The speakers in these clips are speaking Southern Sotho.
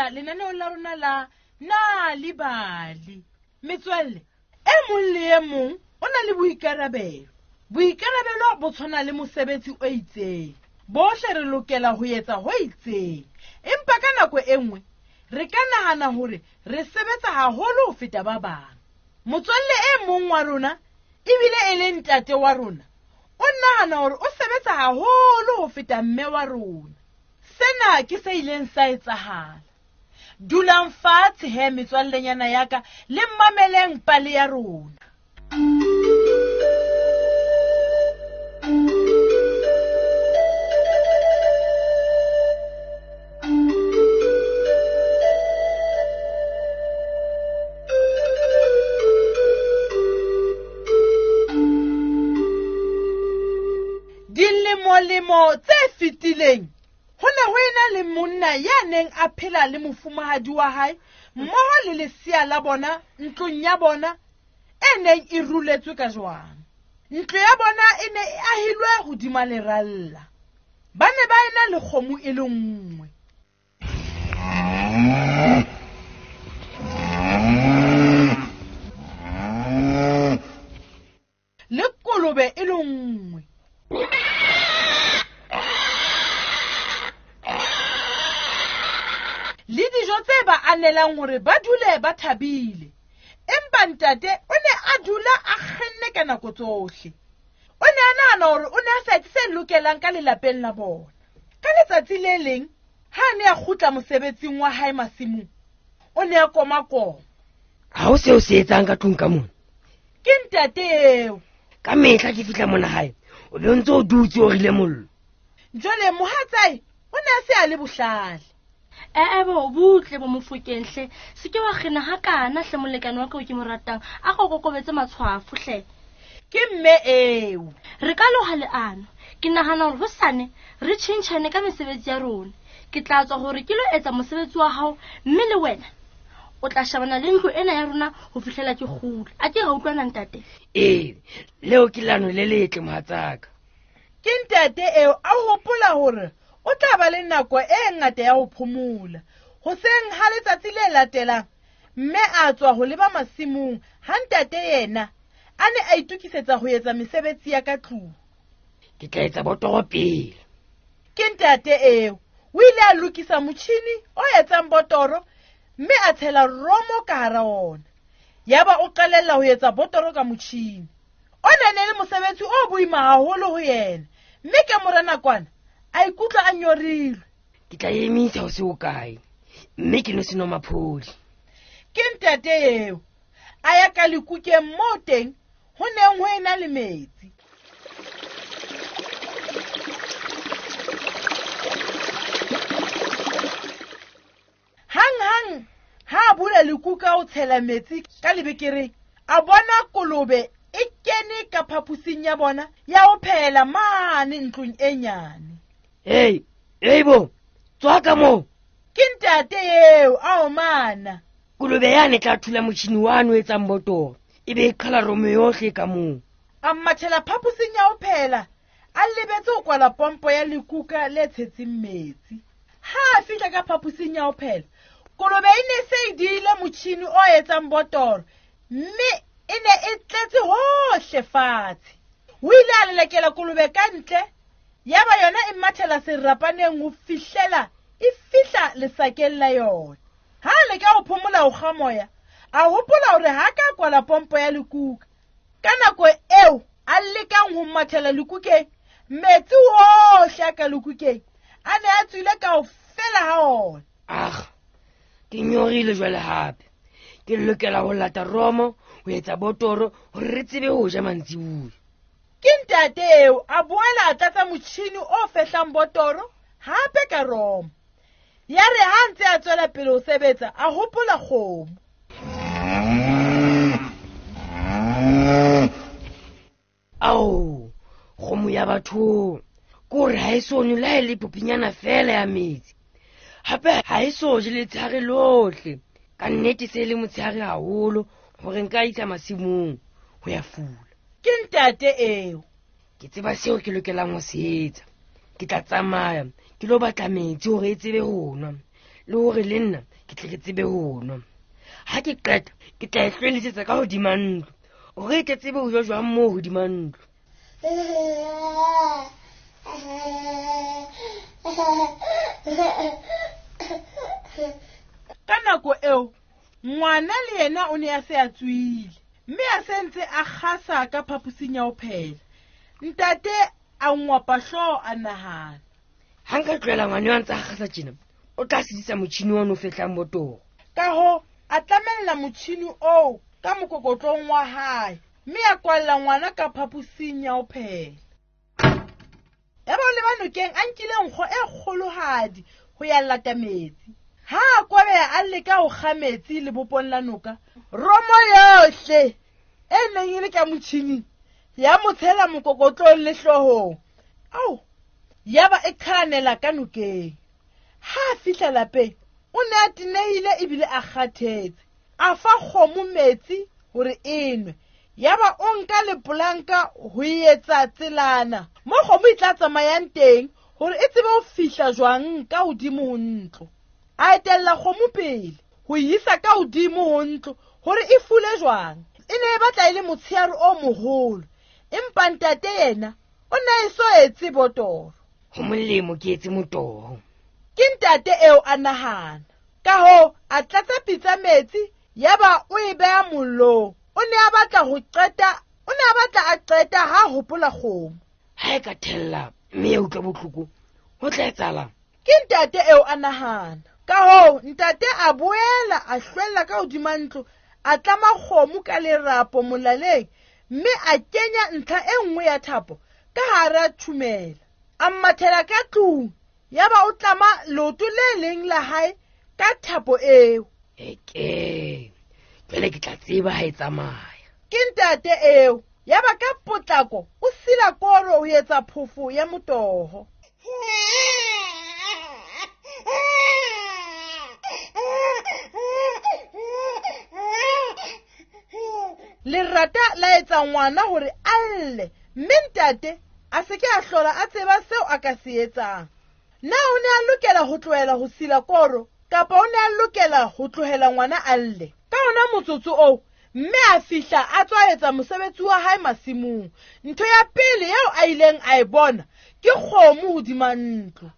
amohela lenaneong la rona la Nal'ibali. Metswalle, e mong le e mong o na le boikarabelo. Boikarabelo bo tshwana le mosebetsi o itseng. Bohle re lokela ho etsa ho itseng. Empa ka nako e nngwe re ka nahana hore re sebetsa haholo ho feta ba bang. Motswalle e mong wa rona ebile e le ntate wa rona o nahana hore o sebetsa haholo ho feta mme wa rona. Sena ke se ileng sa etsahala. Dulang fatshe he metswallenyana ya ka le mameleng pale ya rona. Dilemolemo tse fetileng ho ne ho ena le monna ya neng a phela le mofumahadi wa hae mmoho le lesea la bona ntlong ya bona e neng e ruletswe ka jwang. Ntlo ya bona e ne e ahilwe hodima leralla. Ba ne ba ena le kgomo e le nngwe. Le kolobe e le nngwe. Le dijo tse ba anelang hore ba dule ba thabile. Empa ntate o ne a dula a kgenne ka nako tsohle. O ne a nahana hore o ne a sa etse se lokelang ka lelapeng la bona. Ka letsatsi le leng, ha a ne a kgutla mosebetsing wa hae masimong, o ne a komakoma. Ha ho seo se etsang ka tlung ka mona. Ke ntate eo. Ka mehla ke fihla mona hae, o be o ntse o dutse o rile mollo. Jwale mohatsae o ne a se a le bohlale. Ee bo butle bo Mofokeng hle. Se ke wa kgena hakana hle molekane wa ka o ke mo ratang. A go kokobetse matshwafo hle. Ke mme eo. Re ka loha leano. Ke nahana hore hosane re tjhentjhane ka mesebetsi ya rona. Ke tla tswa hore ke lo etsa mosebetsi wa hao mme le wena o tla shebana le ntlo ena ya rona ho fihlela ke kgutla. A ke ra utlwana ntate? Ee, leo ke leano le letle mohatsaka. Ke ntate eo a hopola hore o tla ba le nako e ngata ya ho phomola. Hoseng ha letsatsi le latelang, mme a tswa ho leba masimong ha ntate yena a ne a itokisetsa ho etsa mesebetsi ya ka tlung. Ke tla etsa botoro pele. Ke ntate eo. O ile a lokisa motjhini o etsang botoro mme a tshela romo ka hara ona. Yaba o qalella ho etsa botoro ka motjhini. O ne le mosebetsi o boima haholo ho yena, mme ka mora nakwana a ikutlwa a nyorilwe. Ke tla emisa ho se hokae, mme ke no seno maphodi. Ke ntate eo. A ya ka lekukeng moo teng ho neng ho ena le metsi. Hang-hang ha a bula lekuka ho tshela metsi ka lebekereng, a bona kolobe e kene ka phaposing ya bona ya ho phehela mane ntlong e nyane. Hey, hey bo, tswa ka moo. Ke ntate eo a omana. Kolobe yane tla thula motjhini wane o etsang botoro, e be e qhala romo yohle ka moo. A mathela phaposing ya ho phehela, a lebetse ho kwala pompo ya lekuka le tshetseng metsi. Ha a fihla ka phaposing ya ho phehela, kolobe e ne se e diile motjhini o etsang botoro, mme e ne e tletse hohle fatshe. O ile a lelekela kolobe ka ntle, yaba yona e mathela serapaneng ho fihlela e fihla lesakeng la yona. Ha a leka ho phomola ho kga moya, a hopola hore ha ka kwala pompo ya lekuka. Ka nako eo a lekang ho mathela lekukeng, metsi ohle a ka lekukeng a ne a tswile kaofela ha ona. Ah, ke nyorile jwale hape. Ke lokela ho lata romo ho etsa botoro hore re tsebe ho ja mantsiboya. Ke ntate eo a boela a tlatsa motjhini o fehlang botoro hape ka romo. Ya re ha ntse a tswela pele ho sebetsa, a hopola kgomo. Ao, kgomo ya batho. Ke hore ha e so nwe le ha e le popinyana fela ya metsi. Hape ha e so je letshehare lohle. Ka nnete se le motshehare haholo hore nka isa masimong ho ya fula. Ke ntate eo. Ke tseba seo ke lokelang ho se etsa. Ke tla tsamaya ke lo batla metsi hore e tsebe ho nwa. Le hore le nna ke tle ke tsebe ho nwa. Ha ke qeta, ke tla e hlwelisetsa ka hodima ntlo. Hore e tle tsebe ho ja jwang moo hodima ntlo. Ka nako eo, ngwana le yena o ne a se a tswile, mme a se ntse a kgasa ka phaposing ya ho phela. Ntate a ngwapa hlooho a nahana. Ha nka tlohela ngwana eo a ntse a kgasa tjena, o tla sedisa motjhini ono o fehlang botoro. Ka hoo, a tlamella motjhini oo ka mokokotlong wa hae, mme a kwalla ngwana ka phaposing ya ho phela. Yaba o leba nokeng a nkile nkgo e kgolohadi ho ya lata metsi. Ha a kwabeha a leka ho kga metsi lebopong la noka, romo yohle e neng e le ka motjhining ya mo tshela mokokotlong le hloohong. Ao, yaba e qhalanela ka nokeng. Ha a fihla lapeng, o ne a tenehile ebile a kgathetse. A fa kgomo metsi hore e nwe. Yaba o nka lepolanka ho etsa tselana mo kgomo e tla tsamayang teng hore e tsebe ho fihla jwang ka hodimo ho ntlo. A etella kgomo pele ho e isa ka hodimo ho ntlo hore e fule jwang. E ne e batla e le motsheare o moholo, empa ntate yena o ne a eso etse botoro. Ho molemo ke etse motoho. Ke ntate eo a nahana. Ka hoo, a tlatsa pitsa metsi, yaba o e beha mollong. O ne a batla ho qeta, o ne a batla a qeta ha hopola kgomo. Ha e ka thella mme ya utlwa bohloko, ho tla etsahalang? Ke ntate eo a nahana. Ka hoo, ntate a boela a hlwella ka hodima ntlo, a tlama kgomo ka lerapo molaleng, mme a kenya ntlha e nngwe ya thapo ka hara thumela. A mmathela ka tlung, yaba o tlama leoto le leng la hae ka thapo eo. Eke, jwale ke tla tseba ha e tsamaya. Ke ntate eo, yaba ka potlako o sila koro ho etsa phofo ya motoho. Lerata la etsa ngwana hore a lle, mme ntate a se ke a hlola a tseba seo a ka se etsang. Na o ne a lokela ho tlohela ho sila koro, kapa o ne a lokela ho tlohela ngwana a lle? Ka ona motsotso oo, mme a fihla a tswa etsa mosebetsi wa hae masimong. Ntho ya pele eo a ileng a e bona ke kgomo hodima ntlo.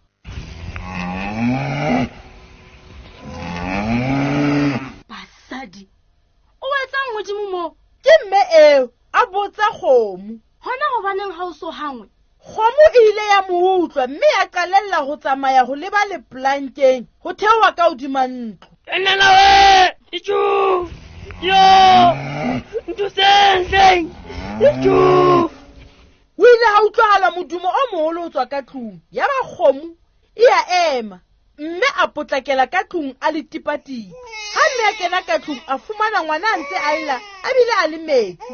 Basadi, o etsang hodimo moo? Ke mme eo a botsa kgomo. Hona hobaneng ha o so hangwe? Kgomo e ile ya mo utlwa mme ya qalella ho tsamaya ho leba leplankeng ho theoha ka hodima ntlo. Nnana we, itjhu, yo, nthuseng hleng, itjhu. O ile ha utlwahala modumo o moholo ho tswa ka tlung. Yaba kgomo e a ema, mme a potlakela ka tlung a le tipatipa. Ha mme a kena ka tlung, a fumana ngwana a ntse a lla, a bile a le metsi.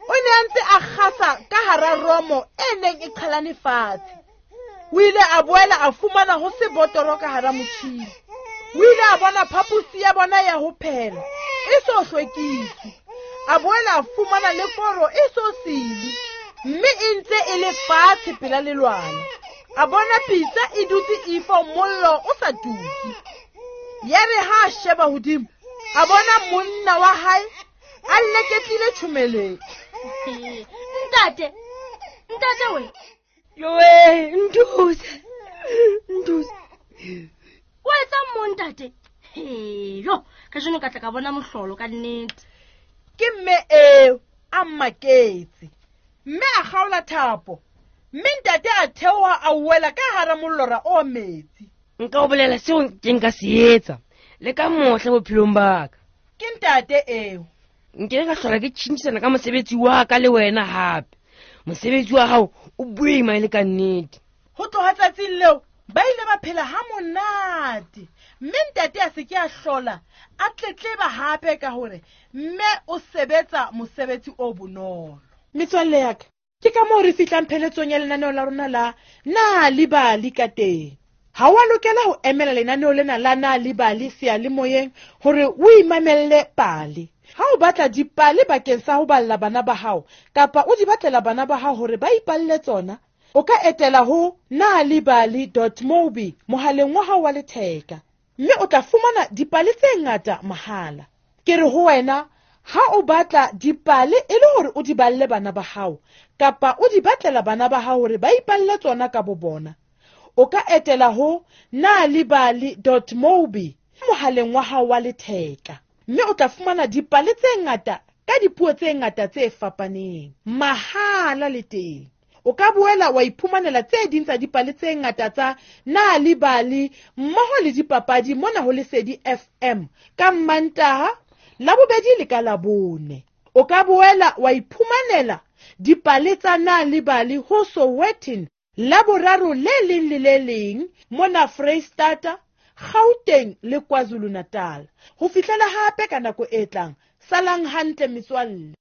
O ne a ntse a kgasa ka hara romo e neng e qhalane fatshe. O ile a boela a fumana ho se botoro ka hara motjhini. O ile a bona phaposi ya bona ya ho phela e so hlwekiswe. A boela a fumana le koro e so silwe, mme e ntse e le fatshe pela lelwala. A bona pitsa e dutse ifo mollo o sa tuke. Yare ha a sheba hodimo, a bona monna wa hae a leketlile tjhomeleng. Ntate, ntate we. Yowe, nthuse, nthuse. O etsang mo ntate? Yo, kajeno ka tla ka bona mohlolo ka nnete. Ke mme eo a mmaketse. Mme a kgaola thapo, mme ntate a theoha a wela ka hara mollora o metsi. Nka o bolela seo ke nka se etsa le ka mohla bophelong ba ka. Ke ntate eo. Nkile ka hlola ke tjhentjhisana ka mosebetsi wa ka le wena hape. Mosebetsi wa hao o boima e le ka nnete. Ho tloha tsatsing leo, ba ile ba phela ha monate. Mme ntate a se ke a hlola a tletleba hape ka hore mme o sebetsa mosebetsi o bonolo. Metswalle ya ka, ke ka moo re fihlang pheletsong ya lenaneo la rona la Na le Bali ka teng. Ha wa lokela ho emela lenaneo lena la Na le Bali seyalemoyeng hore o imamelle pale. Ha o batla dipale bakeng sa ho balla bana ba hao, kapa o di batlela bana ba hao hore ba ipalle tsona, o ka etela ho nalibali.mobi mohaleng wa hao wa letheka. Mme o tla fumana dipale tse ngata mahala. Ke re ho wena, ha o batla dipale e le hore o di balle bana ba hao kapa o di batlela bana ba hao hore ba ipalle tsona ka bo bona, o ka etela ho nalibali.mobi mohaleng wa hao wa letheka, mme o tla fumana dipale tse ngata ka dipuo tse ngata tse fapaneng mahala le teng. O ka boela wa iphumanela tse ding tsa dipale tse ngata tsa Nalibali mmoho le dipapadi mona ho Lesedi FM ka Mmantaha, Labobedi le ka Labone. O ka boela wa iphumanela dipale tsa Nalibali ho Sowetan Laboraro le leng le le leng mona Freistata, Gauteng le KwaZulu-Natal. Ho fihlela hape ka nako e tlang, salang hantle metswalle.